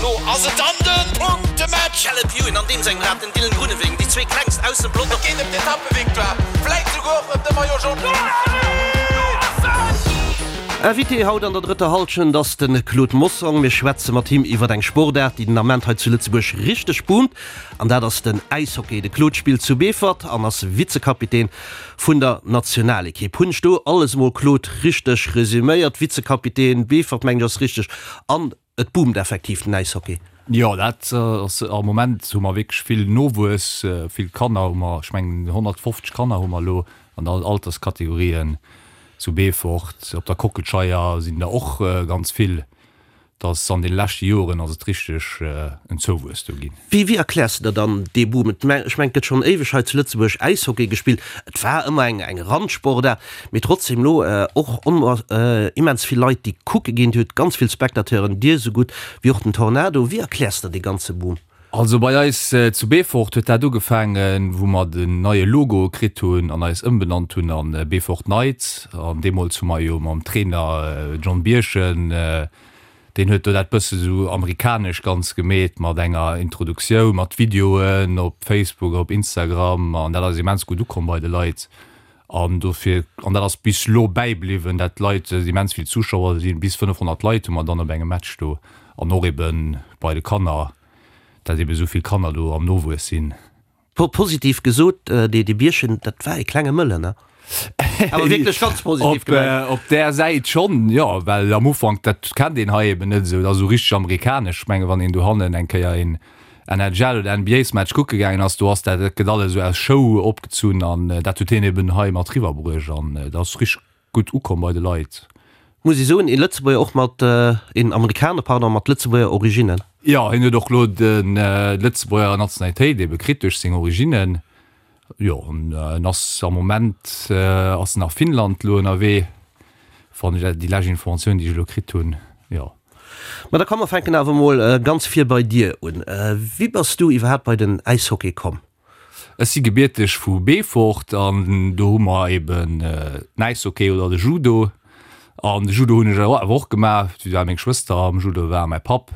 Lo ass et dann de Punktematch! Caleb Ewan an deem sengem Rad, den Dylan Groenewegen, déi zwee klengst aus dem Pelotong. Et geet ëm d'Etappevictoire, vläit souguer och ëm de Maillot Jaune. Invité haut an der drëtter Hallschent ass de Claude Mossong. Mir schwätze mat him iwwer eng Sportaart, déi den Ament hei zu Lëtzebuerg richteg boomt, an dat ass den Äishockey. De Claude spillt zu Beefort an ass Vizekapitän vun der Nationalekipp. Hunn ech do alles emol, Claude, richteg resüméiert? Vizekapitän, Beefort mengen ech ass richteg, an et boomt effektiv den Äishockey. Jo, dat ass, am Moment hu mer wierklech vill Nowuess, vill Kanner hu mer, ech mengen 150 Kanner hu mer elo an all Alterskategorien zu Beefort. Op der Kockelscheier sinn der och ganz vill. Dass an de leschte Joren ass et richteg en Zouwuess do ginn. Wéi wéi erkläers de der dann dee Boom? Et ech mengen et gëtt schonn éiweg hei zu Lëtzebuerg Äishockey gespillt, et war ëmmer eng eng Randsportaart, mee trotzdem elo och immens vill Leit déi kucke ginn, Dir hutt ganz vill Spectateuren, Dir esou gutt wéi och den Tornado. Wéi erkläers de der dee ganze Boom? Also bei eis zu Beefort huet dat ugefaangen, wou mer den neie Logo kritt hunn an eis ëmbenannt hunn an Beefort Knights. An deemools hu mer jo mam Trainer John Birchen, deen huet do dat bësse sou amerikanesch ganz gemeet mat enger Introduktioun, mat Videoen op Facebook, op Instagram an dat ass immens gutt ukomm bei de Leit. An dofir, an dat ass bis lo bäibliwwen, dat d'Leit, immens vill Zuschauer sinn, bis 500 Leit hu mer dann op engem Match do an och ebe bei de Kanner. dat ebe sou vill Kanner do am Nowuess sinn. Positiv gesot, dee Bierchen, dat war ee klenge Mëllen, ne? Awer wierklech ganz positiv gemengt. Op där Säit schonn, jo, well am Ufank, dat kennt een hei eben net esou, dat ass esou richteg amerikanesch. Ech menge wann een dohannen eng Kéier een NHL oder NBA-Match kucke gaangen ass, do ass dat, dat gëtt alles esou aus Show opgezunn an dat huet hien eben hei mat riwwerbruecht an dat ass richteg gutt ukomm bei de Leit. Muss ee soen, ee Lëtzebuerger och mat, een Amerikaner, pardon, mat Lëtzebuerger Originnen. Jo, hien huet och elo d'Lëtzebuerger Nationalitéit ebe kritt duerch seng Originnen. Jo, an en ass am Moment ass en a Finnland elo ënnerwee, wann ech déi lescht Informatioun, déi ech elo kritt hunn, jo. Ma da komm mer fänken awer emol ganz vir bei dir un. Wéi bass du iwwerhaapt bei den Äishockey komm? Ech si gebierteg vu Beefort an do hu mer eben den Äishockey oder de Judo. An de Judo hunn ech awer och gemaach, well meng Schwëster am Judo war a mäi Papp.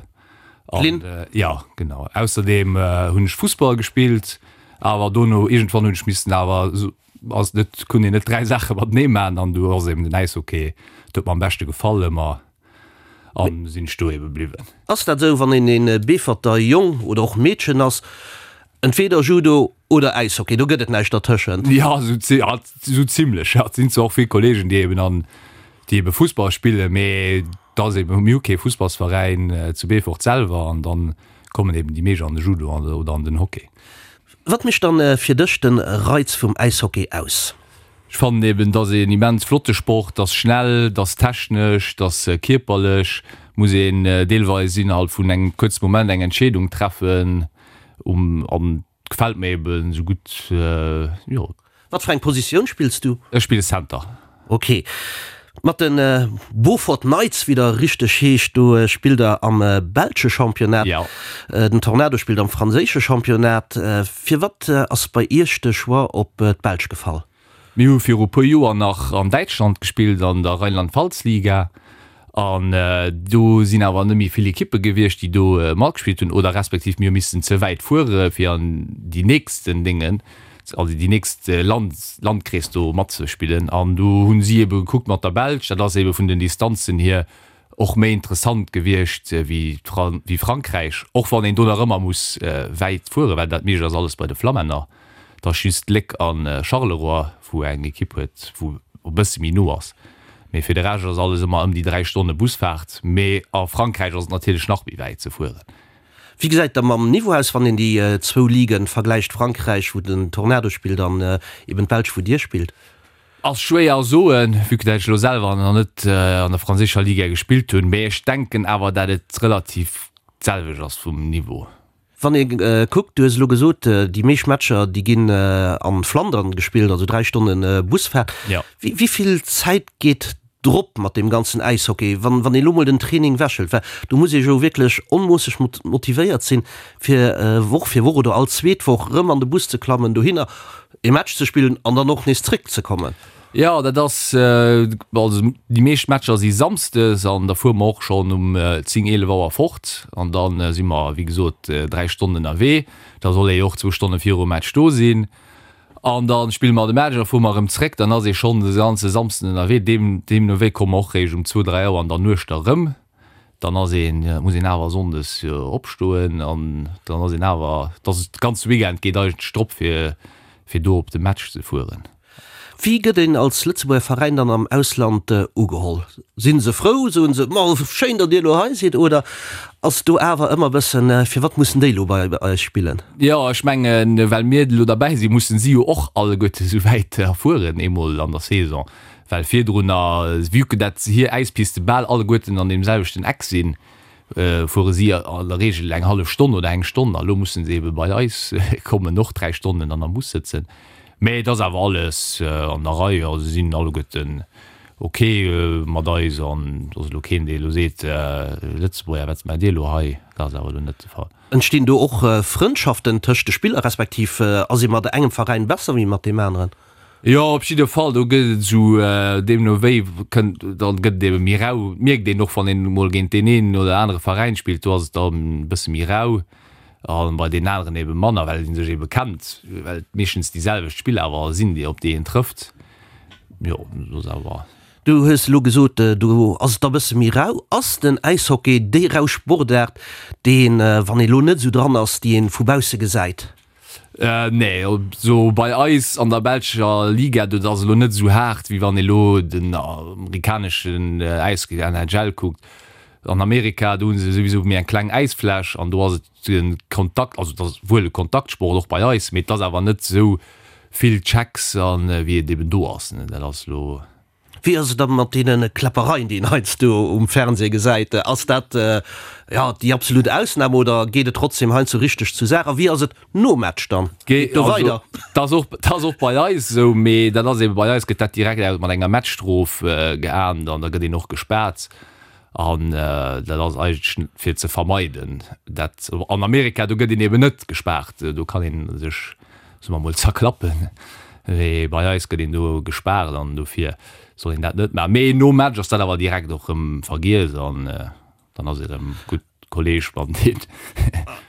D'Lynn? Jo, genau. Ausserdeem hunn ech Fussball gespillt, awer dono iergendwann hunn ech missen awer, ass net, konnt een net 3 Saache matenee maachen an du ass eben den Äishockey, dat huet mer am beschte gefall ëmmer. An sinn ech do ebe bliwwen. Ass dat esou, wann een een Beeferter Jong oder och Meedchen ass, entweder Judo oder Äishockey, do gëtt et näischt dertëschent? Jo, esou zimlech. Jo, et sinn zwar och vill Kollegen, déi eben an, déi ebe Fussball spillen, mee et ass eben, mir hu kee Fussballsveräin zu Beefort selwer an dann kommen eben déi meescht an de Judo oder an den Hockey. Wat mécht dann fir dech den Reiz vum Äishockey aus? Ech fannen eben, et ass een immens flotte Sport, et ass schnell, et ass technesch, et ass kierperlech, muss een deelweis innerhalb vun engem kuerze Moment eng Entscheedung treffen um an gefält mir eben esou gutt, jo. Wat fir eng Positioun spills du? Ech spille Center. Ok. Mat de Beaufort Knights, wéi der richteg heescht, do spillt der am belsche Championnat. Jo. Den Tornado spillt am franséische Championnat. Firwat ass bei Iech de Choix op d'Belsch gefall? Mir hu viru puer Joer nach an Däitschland gespillt, an der Rheinland-Pfalz-Liga. An do sinn awer net méi vill Ekippe gewiescht, déi do matgespillt hunn, oder respektiv mir hu missen ze wäit fuere fir an déi nächsten Déngen, also déi nächst Land, Landkrees do matzespillen. An do hu si ebe gekuckt mat der Belsch, dat ass ebe vun den Distanzen hier och méi interessant gewiescht wéi wéi Frankräich, och wann een do nach ëmmer muss wäit fueren, well dat meescht ass alles bei de Flammänner. Et ass just Léck a Charleroi, wou eng Ekipp huet, wou e bësse méi no ass. Mee fir de Rescht ass alles ëmmer ëm déi 3 Stonne Busfaart. Mee a Frankräich ass et natierlech nach méi wäit ze fueren. Wéi gesäit et da mam Niveau aus, wann een déi zwou Ligen vergläicht, Frankräich, wou den Tornado spillt, an eben d'Belsch, wou Dir spillt? Ass schwéier soen, vue que dat ech elo selwer nach net an der franséischer Liga gespillt hunn. Mee ech denken awer, dat et relativ d'selwecht ass vum Niveau. Wann ee kuckt, du hues elo gesot, déi meescht Matcher, déi ginn an Flandern gespillt, also 3 Stonne Busfaart. Wéi vill Zäit geet drop mat deem ganzen Äishockey, wann een elo mol den Training wechelt? Well do muss ee jo wierklech onmoosseg motivéiert sinn, fir Woch fir Woch oder all zweet Woch erëm an de Bus ze klammen, dohinner ee Match ze spillen an dann och nees zréckzekommen. Jo, dat ass, also déi meescht Matcher si samsdes an da fuere mer och schonn um 10, 11 Auer fort an da si mer, wéi gesot, 3 Stonnen ënnerwee. Da soll ee jo och zwou Stonne virum Match do sinn an da spille mer de Match an da fuere mer erëm zréck. Dann ass ee schonn de ganze Samsden ënnerwee. Deem, deemno wéi komme mer och réischt um zwou, 3 Auer an der Nuecht da rëm. Dann ass een, muss een awer sonndes opstoen an dann ass een awer, dass de ganze Weekend geet eigentlech drop fir, fir do op de Match ze fueren. Wéi gëtt een als Lëtzebuerger Veräin dann am Ausland ugeholl? Sinn se frou, soen se, ma schéin datt dir elo hei sidd, oder ass do awer ëmmer e bëssen, firwat mussen déi elo bei eis spillen? Jo, ech mengen, well mir elo derbäi sinn, mussen si jo och alleguerte sou wäit erfueren, eemol an der Saison, well virdrunner, vue que dat hir Äispiste bal alleguerten an deem selwechten Eck sinn, fuere si an der Reegel eng hallef Stonn oder eng Stonn, a lo musse se ebe bei eis kommen, och 3 Stonnen an am Bus sëtzen. Mee et ass awer alles an der Rei, also si sinn alleguerten ok mat eis an et ass elo keen, dee elo seet, Lëtzebuerger, wat maacht Dir elo hei? Dat ass awer elo net de Fall. Entstinn do och Frëndschaften tëscht de Spiller, respektiv ass ee mat engem Veräin besser wéi mat deem aneren? Jo, op jidde Fall, do gëtt et esou, deemno wéi kënnt, da gëtt et ebe méi rau. Mierkt een och, wann een emol géint deen een oder anere Veräin spillt, do ass et dann e bësse méi rau a bei deenen aneren ebe manner, well ee sech ebe kennt, well et meeschtens déi selwecht Spiller awer sinn, déi op déi een trëfft. Jo, dat ass awer. Du hues elo gesot, do ass et da bësse méi rau. Ass den Äishockey déi rau Sportaart, déi een, wann ee lo net esou dran ass, déi een vu bausse gesäit? Nee, sou bei eis an der belscher Liga, do ass elo net esou haart, wéi wann ee lo den amerikaneschen Äishockey, NHL, kuckt. An Amerika, do hu se souwisou méi eng kleng Äisfläch an do ass et de Kontakt, also et ass wuel e Kontaktsport och bei eis, mee et ass awer net esou vill Checks a wéi et eben do ass. Dat ass elo. Wéi ass et da mat deene Kläppereien, déi een heiansdo um Fernseh gesäit? Ass dat, jo, déi absolut Ausnam oder geet et trotzdem heiansdo richteg zur Saach? A wéi ass et nom Match dann? Geet et do weider? Dat ass och, dat ass och bei eis esou, mee dat ass ebe bei eis gëtt dat direkt mat enger Matchstrof geahndt an da gëtt een och gespaart. An dat ass eigentlech fir ze vermeiden, dat an Amerika, do gëtt een eben net gespaart, do kann ee sech, soe mer mol, zerklappen, mee bei eis gëtt een do gespaart an dofir soll een dat net maachen. Mee nom Match ass dat awer direkt och erëm vergiess an dann ass ee erëm gutt Kolleg mat deen.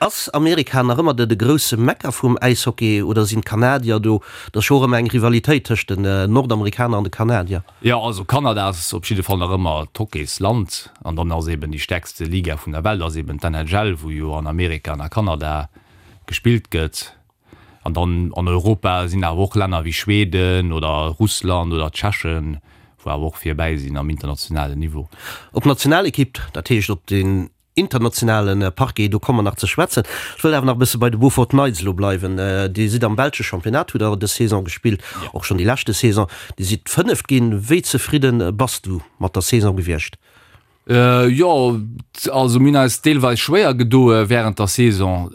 Ass Amerika nach ëmmer de grousse Mekka vum Äishockey oder sinn d'Kanadier do? Et ass jo och ëmmer eng Rivalitéit tëscht den Nordamerikaner an de Kanadier. Jo, also Kanada ass op jidde Fall nach ëmmer d'Hockeysland an dann ass eben déi stäerkste Liga vun der Welt ass eben d'NHL, wou jo an Amerika an a Kanada gespillt gëtt. An dann an Europa sinn awer och Länner wéi Schweden oder Russland oder Tschechen, wou awer och virbäi sinn am internationalen Niveau. Op d'Nationalekipp, dat heescht op den internationale Parquet, do komme mer nach ze schwätzen. Ech wëll awer nach e bësse bei de Beaufort Knights elo bleiwen. Dir sidd am belsche Championnat, hutt der dës Saison gespillt, och schonn déi leschte Saison. Dir sidd Fënneft ginn. Wéi zefridde bass du mat der Saison gewiescht? Jo, also mir hunn eis deelweis schwéier gedoe wärend der Saison.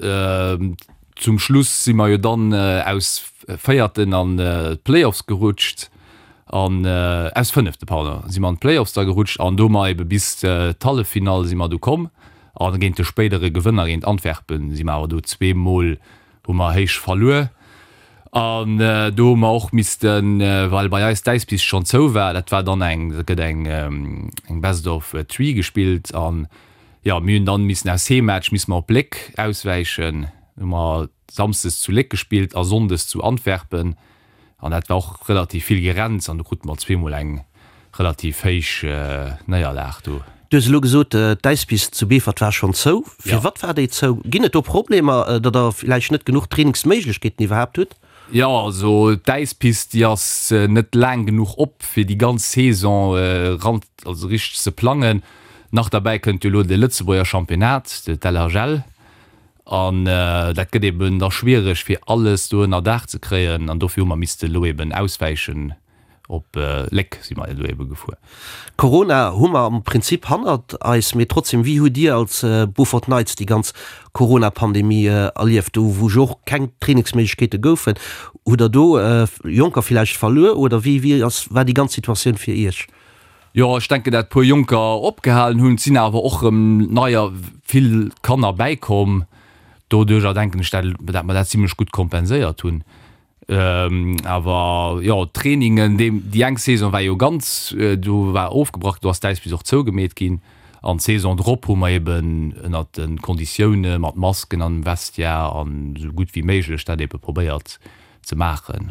Zum Schluss si mer jo dann aus Véierten an d'Playoffs gerutscht an aus Fënnefte, pardon, si mer an d'Playoffs da gerutscht an do hu mer ebe bis d'Halleffinall si mer du komm a géint de spéidere Gewënner, géint Antwerpen, si mer awer do zweemol hu mer héich verluer an do hu mer och missten, well bei eis d'Äispist schonn zou war, dat war dann eng, dat gëtt eng eng Best of Three gespillt an jo, mir hunn dann missen aus Heemmatch misse mer op Léck auswäichen, hu mer samsdes zu Léck gespillt a sonndes zu Antwerpen an dat war och relativ vill Gerenns an do krute mer zweemol eng relativ héich Néierlag do. Du hues elo gesot, d'Äispist zu Beefort war schonn zou. Firwat war déi zou? Ginn et do Problemer, datt der villäicht net genuch Trainingsméiglechkeeten iwwerhaapt hutt? Jo, also d'Äispist, déi ass net laang genuch op, fir déi ganz Saison ran, also richteg ze plangen. Nach derbäi kënnt jo elo de Lëtzebuerger Championnat, d'LHL, an dat gëtt eben da schwiereg, fir alles do ënner Daach ze kréien. An dofir hu mer misste elo eben auswäichen. Op Léck si mer elo ebe gefuer. Corona hu mer am Prinzip hannert eis, mee trotzdem, wéi hutt Dir als Beaufort Knights déi ganz Corona-Pandemie erlieft, do wou jo och keng Trainingsméiglechkeete goufen? Hutt Der do Jonker villäicht verluer oder wéi wéi ass war déi ganz Situatioun fir Iech? Jo, ech denken dat puer Jonker opgehalen hunn, et sinn awer och erëm neier vill Kanner bäikomm. Doduercher denken ech dat dat mer dat zimlech gutt kompenséiert hunn. Awer jo, d'Trainingen, déi eng Saison war jo ganz, do war ofgebrach, do ass d'Äispist och zougemeet ginn. An d'Saison drop hu mer eben ënnert de Konditioune mat Masken an dem Vestiaire an esou gutt wéi méiglech dat ebe probéiert ze maachen.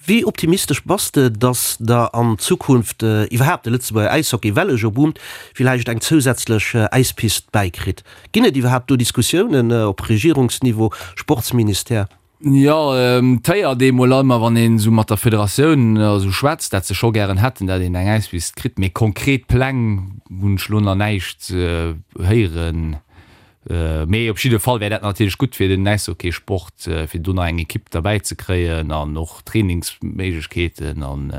Wéi optimistesch bass de, datt der an Zukunft iwwerhaapt de Lëtzebuerger Äishockey, well e jo boomt, villäicht eng zousätzlech Äispist bäikritt? Ginn et iwwerhaapt do Diskussiounen op Regierungsniveau, Sportsministère? Jo, et héiert ee mol ëmmer, wann een esou mat der Federatioun esou schwätzt, dat se scho gären hätten, dat een eng Äispist kritt. Mee konkret Pläng hunn ech elo nach näischt héieren. Mee op jidde Fall wär dat natierlech gutt fir den Äishockeysport, fir do nach eng Ekipp derbäi ze kréien an och Trainingsméiglechkeeten an.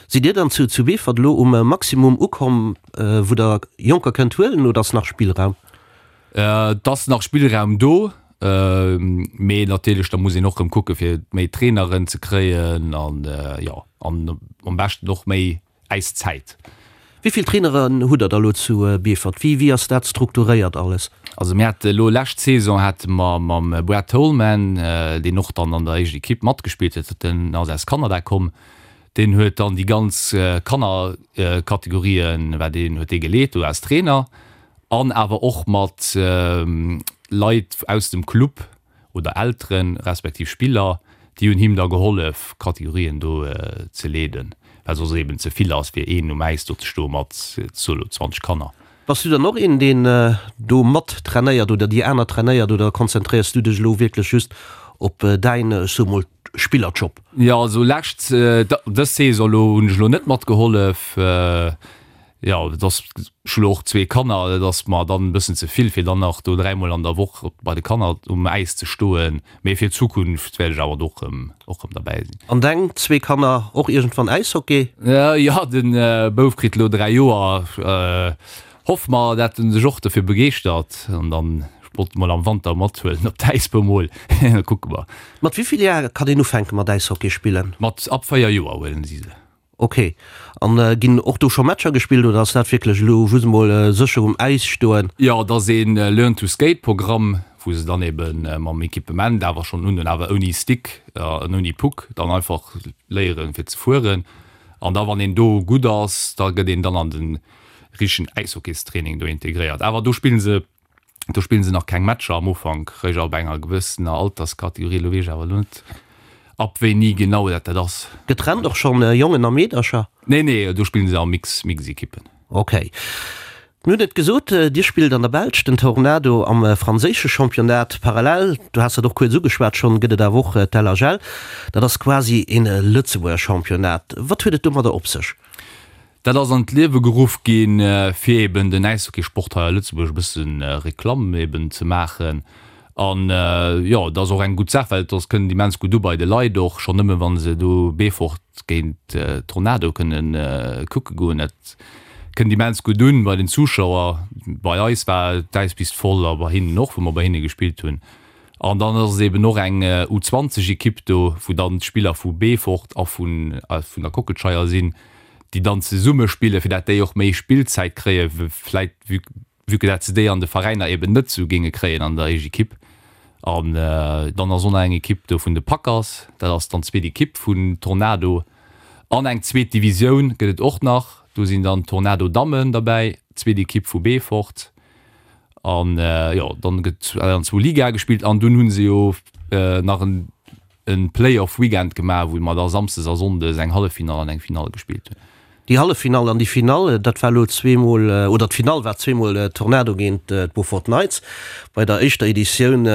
Sidd Dir dann zu zu Beefort elo um Maximum ukomm, wou Der Jonker kënnt huelen, oder ass nach Spillraum? Et ass nach Spillraum do, mee natierlech da muss een och rëm kucke fir méi Traineren ze kréien an jo an am beschten och méi Äiszäit. Wéi vill Traineren hutt der da lo zu Beefort? Wéi wéi ass dat strukturéiert alles? Also mir hate lo lescht Saison hate mer mam Brad Tolman, deen och dann an der éischt Ekipp matgespillt huet, den ass aus Kanada komm, deen huet dann déi ganz Kannerkategorien war deen huet dee geleet do als Trainer. An awer och mat Leit aus dem Club oder Elteren, respektiv Spiller, déi hunn him da gehollef, Kategorien do ze leeden, well soss eben ze vill ass, fir een um Äis do ze stoe mat, soe lo, 20 Kanner. Bass du dann och een, deen do mat trainéiert oder déi aner trainéiert oder konzentréiers du dech elo wierklech just op däin, ech soe mol, Spillerjob? Jo, also lescht, dës Saison elo hunn ech elo net matgehollef. Jo, et ass, ech hu lo och zwee Kanner, et ass mer dann e bëssen ze vill, fir dann nach do dräimol an der Woch bei de Kanner um Äis ze stoen. Mee fir d'Zukunft wäert ech awer do och rëm, och rëm derbäi sinn. An deng zwee Kanner och iergendwann Äishockey? Jo, de Bouf kritt lo 3 Joer. Hoffe mer, dat en sech och dofir begeeschtert an dann, ech wollt e mol am Wanter mathuelen op d'Äis bemol, da kucke mer. Mat wéi vill Jar kann een ufänke mat Äishockey spillen? Mat ab 4 Joer huelen si se. Ok, an ginn och do scho Matcher gespillt oder ass dat wierklech elo just emol sécher um Äis stoen? Jo, et ass een Learn to Skate Programm, wou se dann eben mam Equipement awer schonn hunn, awer ouni Stick an ouni Puck, dann einfach léieren fir ze fueren. An da wann een do gutt ass, da gëtt een dann an den richtegen Äishockeystraining do integréiert. Awer do spillen se Do spillen se nach keng Matcher am Ufank, réischt ab enger gewëssener Alterskategorie. Elo weess ech awer elo net, ab wéini genau dat dat ass. Getrennt och schonn Jongen a Meedercher? Nee, nee, do spillen se a Mix, Mix-Ekippen. Ok. Mir hunn et gesot, Dir spillt an der Belsch, den Tornado am franséische Championnat. Parallel, du has dat och kuerz ugeschwat schonn, gëtt et awer och d'LHL. Dat ass quasi een Lëtzebuerger Championnat. Wat huet et domadder op sech? Dat ass an d'Liewe geruff ginn, fir eben den Äishockeysport hei a Lëtzebuerg e bësse Reklamm eben ze maachen. An jo, et ass och eng gutt Saach, well et ass, kënnt immens gutt u bei de Leit och, schonn nëmme wa se do Beefort géint Tornado kënnen kucke goen. Dat kënnt immens gutt un bei den Zuschauer. Bei eis war d'Äispist voll a bei hinnen och, wou mer bei hinne gespillt hunn. An dann ass et eben och eng U20 Ekipp do, wou dann d'Spiller vu Beefort a vun der Kockelscheier sinn, déi dann zesumme spillen, fir dat déi och méi Spillzäit kréien, vläit vue vue que dat se déi an de Veräiner eben net esou géinge kréien an der éischt Ekipp. An dann ass och nach eng Ekipp do vun de Packers, dat ass dann d'zweet Ekipp vun Tornado. An eng zweet Divisioun gëtt et och nach, do sinn dann d'Tornado Dammen derbäi, zweet Ekipp vu Beefort. An jo, dann gëtt an zwou Ligae gespillt an dunn hu se jo nach en e Play-off Weekend gemaach, wou mer da Samsdes a Sonndes eng Halleffinall an eng Finall gespillt hunn. Déi Halleffinall an déi Finall, dat war elo zweemol, oder d'Finall war zweemol Tornado géint d'Beaufort Knights. Bei der éischter Editioun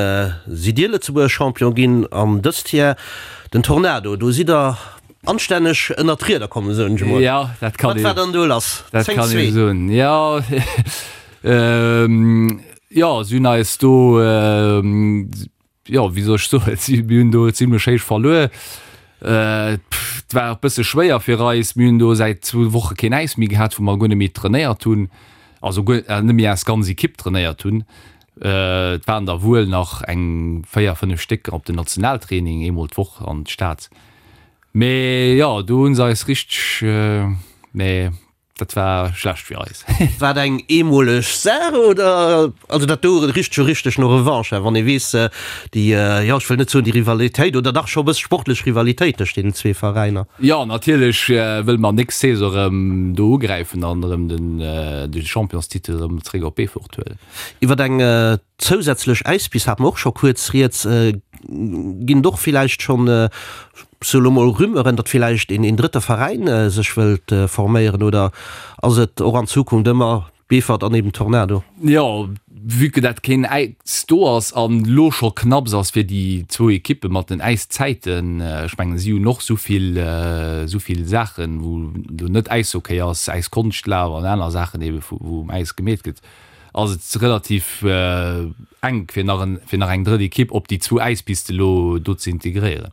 sidd Dir Lëtzebuerger Champion ginn an dëst Jar den Tornado. Do sidd Der anstänneg ënnert d'Rieder komm, soen ech emol. Jo, dat kann Wat war dann do lass? Dat 10 kann ee 2. soen, jo. Jo, si hunn eis do, jo, wéi soll ech soen, si, mir hunn do zimlech héich verluer. Et war och bësse schwéier fir eis. Mir hunn do säit zwou Woche keen Äis méi gehat, wou mer guer net méi trainéiert hunn, also guer net méi eis ganz Ekipp trainéiert hunn. Et waren der wuel nach eng 4, 5 Stécker op den Nationaltraining eemol d'Woch an d'Stad. Mee jo, do hu se eis richteg, mee. Dat war schlecht fir eis. War dat eng eemoleg Saach oder? Also dat do richt jo richteg no Revanche, wann ee weess, déi, jo ech wëll net soen déi Rivalitéit, oder dach scho e bësse sportlech Rivalitéit tëscht deenen zwee Veräiner. Jo, natierlech wëlle mer nächst Saison erëm do ugräifen an erëm den de Championstitel erëm zréck op Beefort huelen. Iwwer eng zousätzlech Äispist hate mer och scho kuerz rieds. Ginn et och villäicht schonn, sou elo mol Rumeuren, datt villäicht een drëtte Veräin sech wëllt forméieren oder ass et och an Zukunft ëmmer Beefort an eben Tornado? Jo, vue que dat keen Äis do ass an elo scho knapps ass fir déi zwou Ekippe mat den Äiszäiten, ech mengen si hunn och souvill souvill Saachen, wou elo net Äishockey ass, Äiskonschtlaf an aner Saachen ebe wou um Äis gemeet gëtt, ass et relativ enk fir nach en fir nach eng drëtt Ekipp op déi zwou Äispiste elo do ze integréieren.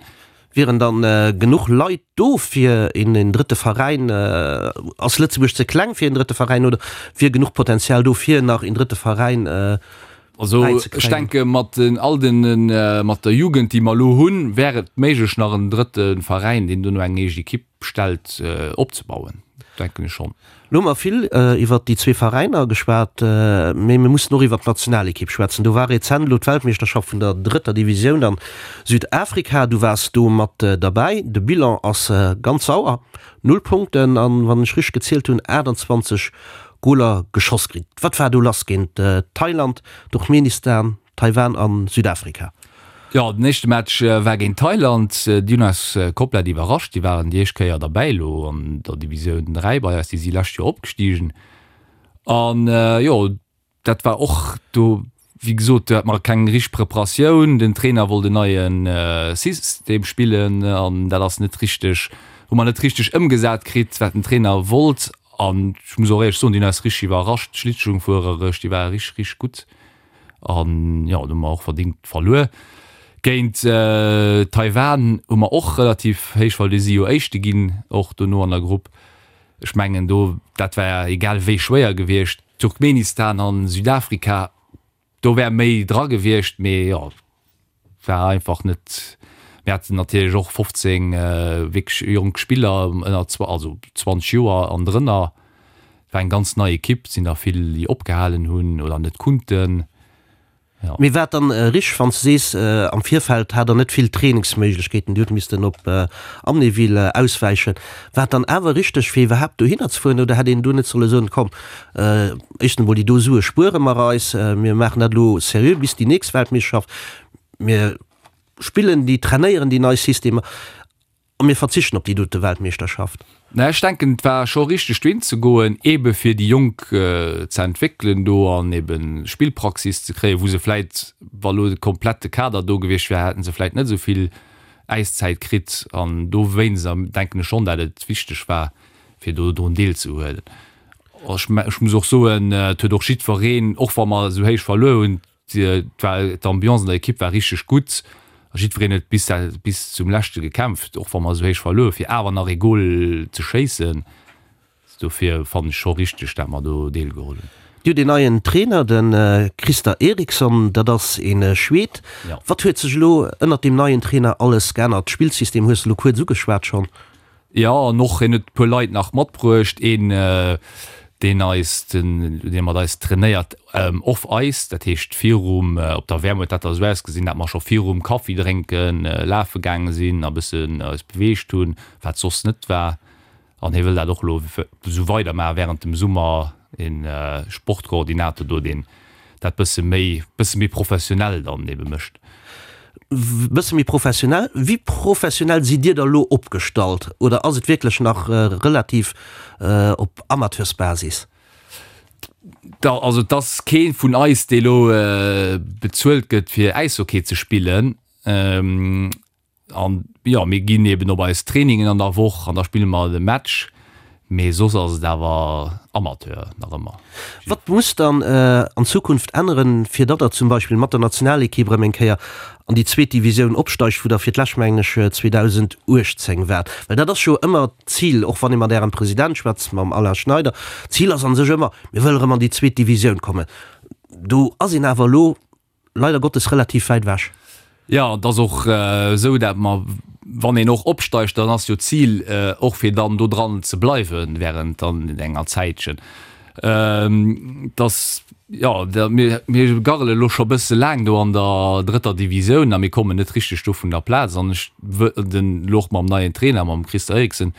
Wieren dann genuch Leit do fir een drëtte Veräin? Ass Lëtzebuerg ze kleng fir een drëtte Veräin oder wier genuch Potenzial do fir nach een drëtte Veräin Also ech denke mat den all den mat der Jugend déi mer elo hunn, wär et méiglech nach en drëtte Veräin deen dono eng eege Ekipp stellt opzebauen, denken ech schonn. Lo hu mer vill iwwert déi zwee Veräiner geschwat, mee mir mussen och iwwert d'Nationalekipp schwätzen. Do war rezent elo d'Weltmeeschterschaft vun der drëtter Divisioun an Südafrika. Du waars do mat derbäi. De Bilan ass ganz sauer, Null Punkten an, wann ech richteg gezielt hunn, 28 Goler geschoss kritt. Wat war do lass géint Thailand, Turkmenistan, Taiwan an Südafrika. Jo, den éischte Match war géint Thailand. Déi hunn eis komplett iwwerrascht. Déi waren déi éischt Kéier derbäi elo an der Divisioun 3 bei eis. Déi si lescht Joer opgestigen. An jo, dat war och do, wéi gesot, do hat mer keng richteg Preparatioun. Den Trainer wollt en neie System spillen an dat ass net richteg, hu mer net richteg ëmgesat kritt, wat den Trainer wollt. An ech muss och éierlech soen, déi hunn eis richteg iwwerrascht, d'Schlittschungfuerereg, déi ware richteg, richteg gutt. An jo, do hu mer och verdingt verluer. Géint Taiwan hu mer och relativ héich verluer. Déi si jo Éischte ginn, och dono an der Grupp. Ech mengen do, dat war egal wéi schwéier gewiescht. Turkmenistan an Südafrika, do wär méi dra gewiescht, mee jo, war einfach net. Mir haten natierlech och 15 wierklech jonk Spiller ënner, also 20 Joer an drënner. Et war eng ganz nei Ekipp, et sinn der vill déi opgehalen hunn oder net kunnten. Jo. Mee war et dann richteg wann s de sees, am Virfeld hat der net vill Trainingsméiglechkeeten, Dir hutt missten op Amnéville auswäichen. War et dann awer richteg fir iwwerhaapt dohinner ze fueren oder hätt een do net solle soen, komm éischtens emol déi do Sue spuere mer eis, mir maachen dat elo seriö bis déi nächst Weltmeeschterschaft, mir spillen déi, trainéieren déi nei Systemer a mir verzichten op déi dote Weltmeeschterschaft? Mä ech denken, et war scho richteg dohin ze goen, eebe fir déi Jonk ze entwéckelen do an eebe Spillpraxis ze kréien, wou se vläit, wa lo de komplette Kader do gewiescht wär, hätte se vläit net esou vill Äiszäit kritt. An dowéinst denken ech schonn, dat et wichteg war, fir do drun deelzehuelen. Ech muss och soen, et huet och jiddwereen, och wa mer esou héich verluer hunn, d'Ambiance an der Ekipp war richteg gutt a jiddwereen huet bis bis zum leschte gekämpft, och wa mer esou héich verluer hunn, fir awer nach ee Gol ze schéissen. Dofir fannen ech scho richteg, dat mer do deelgeholl hunn. Dir hutt een neien Trainer, de Christer Eriksson, dat ass ee Schwed. Wat huet sech elo ënnert deem neien Trainer alles geännert? D'Spillsystem hues de elo kuerz ugeschwat schonn. Jo, an och hien huet e puer Leit nach matbruecht. Een, deen eis, dee mat eis trainéiert off Ice, dat heescht virum, op der WM huet dat da esou ausgesinn, dat mer scho virum Kaffi drénke lafe gaange sinn a bëssen eis beweegt hunn, wat soss net war. An hie wëll dat och elo esou weidermaachen während dem Summer, een Sportkoordinator do, deen dat bësse méi, bësse méi professionell dann ebe mécht. Bësse méi professionell? Wéi professionell sidd Dir da elo opgestallt? Oder ass et wierklech nach relativ op Amateursbasis? Da, also et ass kee vun eis, dee elo bezuelt gëtt fir Äishockey ze spillen. An jo, mir ginn eben op eis Trainingen an der Woch an da spille mer de Match, mee soss ass et awer Amateur nach ëmmer. Wat muss dann an Zukunft änneren, fir datt der zum Beispill mat der Nationalekipp erëm eng Kéier an déi zweet Divisioun opsteigt, wou der fir d'lescht mengen ech 2018 waart? Well dat ass jo ëmmer d'Zil, och wann ee mat Ärem President schwätzt, mam Alain Schneider, d'Zil ass a sech ëmmer, mir wëlle erëm an déi zweet Divisioun kommen. Do ass een awer elo leider Gottes relativ wäit ewech. Jo, et ass och esou, dat mer. Wann een och opsteigt, dann ass jo d'Zil och fir dann do dran ze bleiwen während dann enger Zäitchen. Dass, jo, mir mir garrele lo scho bësse laang do an der drëtter Divisioun a mir kommen net richteg do vun der Plaz an ech den lo och mam neien Trainer, mam Christer Eriksen,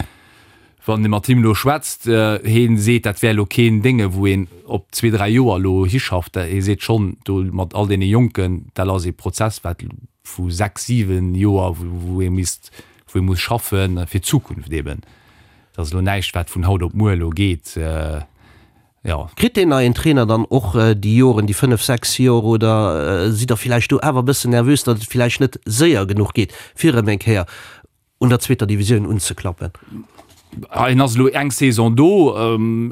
wann ee mat him elo schwätzt, hee seet, dat wär elo keen Dénge wou een op zwee, dräi Joer elo hischafft. Hee seet schonn, do mat all deene Jonken, dat ass ee Prozess wat vu sechs, siwen Joer, wou ee misst, wou ee muss schaffen fir d'Zukunft eben. Dat ass elo näischt wat vun haut op muer elo geet, jo. Kritt deen neien Trainer dann och déi Joren, déi fënnef, sechs Joer, oder sidd Der villäicht do awer e bëssen nervös, datt et villäicht net séier genuch geet, fir erëm eng Kéier un der zweeter Divisioun unzeklappen? Hien ass elo eng Saison do.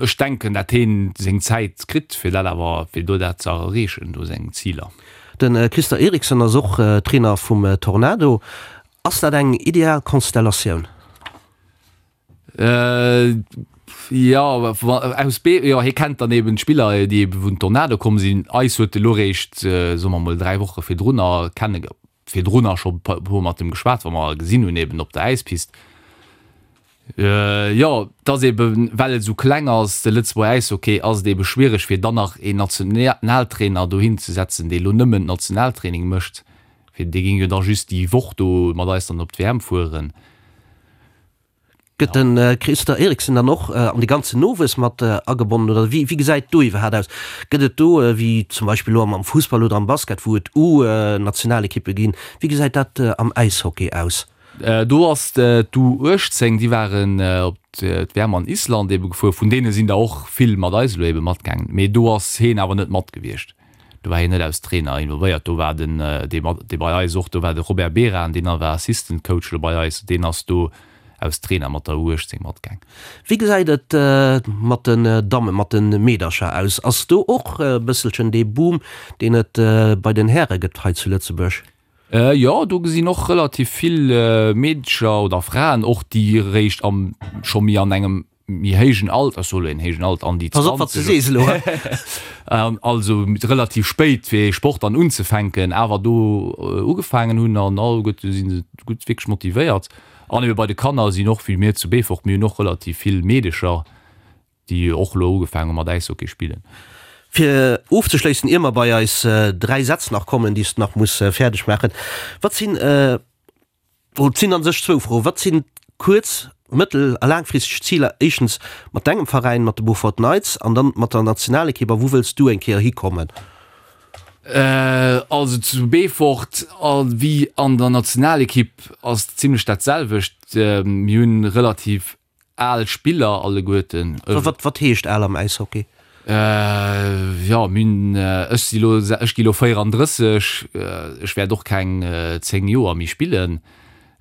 Ech denken, dat hien seng Zäit kritt, fir dat awer, fir do dat ze erreechen, do seng Ziler. De Christer Eriksson ass och Trainer vum Tornado. Ass dat eng ideal Konstellatioun? Jo, aus Be, jo, hie kennt dann eben d'Spiller, déi ebe vun Tornado komm sinn. Eis huet e lo réischt, soe mer mol, 3 Woche virdrunner kenne, virdrunner scho e puer mat em geschwat, wa mer gesinn hunn eben op der Äispist. Jo, et ass eben, well et esou kleng ass, de Lëtzebuerger Äishockey, ass et ebe schwiereg fir dann nach een Nationaltrainer dohin ze setzen, dee lo nëmmen Nationaltraining mécht, fir dee géing jo da just déi Woch do mat eis dann op d'WM fueren. Gëtt de Christer Eriksen dann och an de ganzen Nowuess mat agebonnen oder wéi gesäit do iwwerhaapt aus? Gëtt et do, wéi zum Beispill elo am Fussball oder am Basket, wou et U-Nationalekippe ginn, wéi gesäit dat am Äishockey aus? Do ass d'U18, déi waren op d'WM an Island ebe gefuer, vun deene sinn der och vill mat eis elo ebe matgaangen, mee do ass heen awer net mat gewiescht. Do war hien net als Trainer involvéiert, do war den, dee mat, dee bei eis och do war, de Robert Beran, deen war Assistant Coach elo bei eis, deen ass do als Trainer mat der U18 matgaang. Wéi gesäit et mat den Dammen, mat de Meedercher aus? Ass do och e bësselchen dee Boom, deen et bei den Häre gëtt hei zu Lëtzebuerg? Jo, do gesinn och relativ vill Meedercher oder Fraen och, déi eréischt am, scho méi an engem méi héijen Alter, ech soe lo een héijen Alter, an déi Pass op, wat s de sees elo, hä? Also relativ spéit fir ee Sport dann unzefänken, awer do ugefaangen hunn an alleguerte si se gutt wierklech motivéiert. An ebe bei de Kanner sinn och, wéi mir zu Beefort, mir hunn och relativ vill Meedecher, déi och elo ugefaangen hu mat Äishockey spillen. Fir ofzeschléissen, ier mer bei eis 3 Sätz nach kommen, déi s de nach muss fäerdeg maachen, Wat sinn Et sinn a sech zwou Froen. Wat sinn kuerz-, mëttel a laangfristeg Ziler, éischtens mat dengem Veräin, mat de Beaufort Knights, an dann mat der Nationalekipp? A wou wëlls du eng Kéier hikommen? Also zu Beefort wéi an der Nationalekipp ass et zimlech dat selwecht. Mir hunn relativ Al Spiller alleguerten. Wat wat heescht al am Äishockey? Jo, mir hunn, ech si lo, ech gi lo 34, ech wäert och keng 10 Joer méi spillen.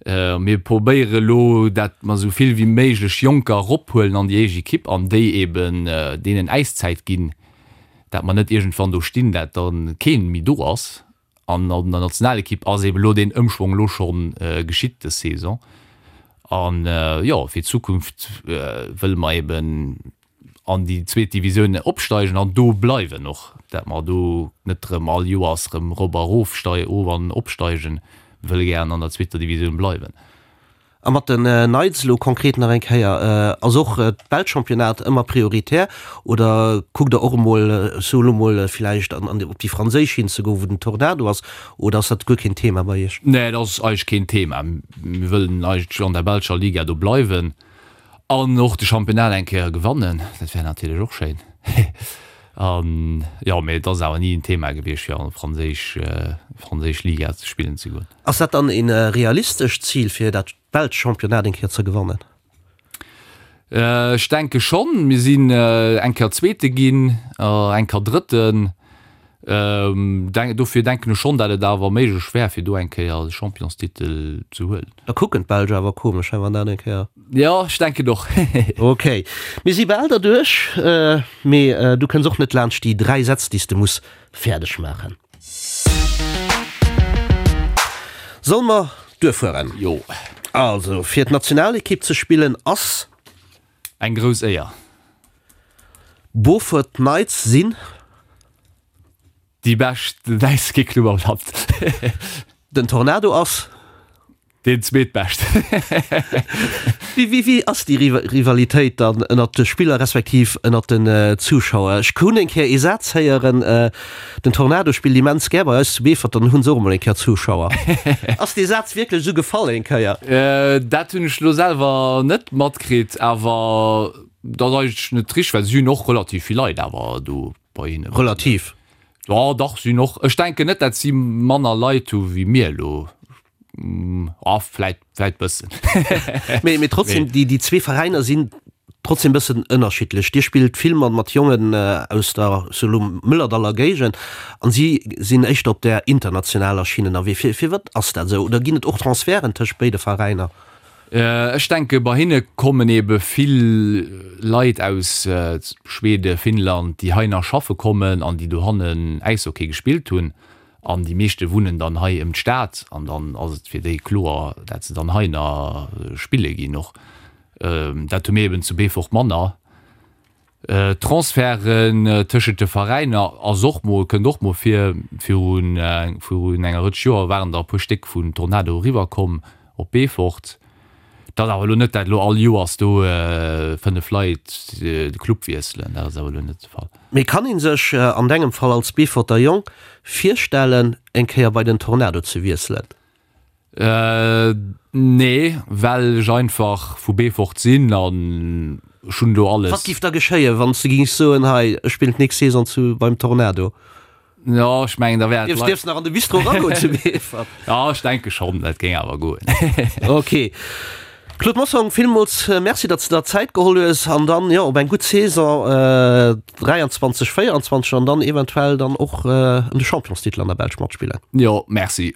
Mir probéiere lo, dat mer esou vill wéi méiglech Jonker erophuelen an déi éischt Ekipp an déi eben deenen Äiszäit ginn, dat mer net iergendwann do stinn, dat da keen méi do ass. An an der Nationalekipp ass eben elo deen Ëmschwong elo scho geschitt dës Saison. An jo, fir d'Zukunft wëlle mer eben an déi zweet Divisioun opsteigen an do bleiwen och, dat mer do net erëm all Joers erëm erop a erof of an opsteigen. Mir wëlle gären an der zweeter Divisioun bleiwen. A mat den Knights elo konkret nach eng Kéier, ass och d'belscht Championnat ëmmer prioritär oder kuckt der och emol, ech soe lo mol, villäicht an an op déi franséisch hinzegoen, wou den Tornado ass, oder ass dat guer keen Thema bei iech? Nee, dat ass eigentlech keen Thema. Mir wëllen eigentlech an der belscher Liga do bleiwen an och de Championnat eng Kéier gewannen, dat wär natierlech och schéin. An jo, mee et ass awer ni en Thema gewiescht fir an franséisch franséisch Liga ze spillen ze goen. Ass dat dann een realistescht Zil fir dat belscht Championnat eng Kéier ze gewannen? Ech denke schonn. Mir sinn eng Kéier Zweete ginn, eng Kéier Drëtten. Dofir denken ech schonn, dat et awer méiglech wär, fir do eng Kéier de Championstitel ze huelen. Da kucken d'Belsch awer komesch, he, wann dat eng Kéier. Jo, ech denken och. Ok, mir si bal derduerch, mee du kënns och net laanscht déi 3 Sätz, déi s de muss fäerdeg maachen. Solle mer duerfueren? Jo. Also, fir d'Nationalekipp ze spillen ass. Eng grouss Éier. Beaufort Knights sinn. Déi bescht Wäisskéclub am Land. Den Tornado ass. Deen zweetbescht. Wéi, wéi ass déi Rivalitéit dann ënnert de Spiller respektiv ënnert den Zuschauer? Ech hunn eng Kéier ee Saz héieren, Den Tornado spillt immens gär bei eis zu Beefort, dann hu se och emol eng Kéier Zuschauer. Ass dee Saz wierklech esou gefall eng Kéier? Dat hunn ech elo selwer net matkritt, awer dat ass eigentlech net richteg, well si hunn och relativ vill Leit awer do bei hinnen. Relativ? Jo, dach, si hunn och, ech denken net, dat si manner Leit hu wéi mir elo. Ah, vläit, vläit bëssen. Mee, mee trotzdem, déi, déi zwee Veräiner sinn trotzdem bëssen ënnerschiddlech. Dir spillt vill mat, mat Jongen aus der, sou elo, Mëllerdaller Géigend an si sinn éischter op där internationaler Schinn ënnerwee. Fir, firwat ass dat esou? Oder ginn et och Transferten tëscht béide Veräiner? Ech denke bei hinne kommen ebe vill Leit aus Schweden, Finnland, déi hei nach schaffe kommen an déi dohannen Äishockey gespillt hunn. An déi meeschte wunnen dann hei ëm d'Stad an dann ass et fir déi kloer, dat se dann hei nach spille ginn och. Dat hu mir eben zu Beefort manner. Transferten tëschent de Veräiner ass och mol, kënnt och mol vir. Virun virun enger Rëtsch Joer waren der e puer Stéck vun Tornado eriwwer komm op Beefort. Dat ass awer elo net, dat elo all Joers do 5 Leit de Club wiesselen, dat ass awer elo net de Fall. Mee kann een sech an dengem Fall als Beeforter Jong virstellen eng Kéier bei den Tornado ze wiesselen? Nee, well ech einfach vu Beefort sinn an ech hunn do alles. Wat giff da geschéien wann s de gings soen, hei ech spillen d'nächst Saison zu beim Tornado? Jo, ech mengen da wär et. Dierfs nach an de Bistro eragoen zu Beefort? Jo, ech denke schonn, dat géing awer goen. Ok. Claude Mossong, villmools Merci, datt s de der Zäit geholl hues an dann, jo, op eng gutt Saison 23, 24 an dann eventuell dann och ëm de Championstitel an der Belsch matspillen. Jo, Merci.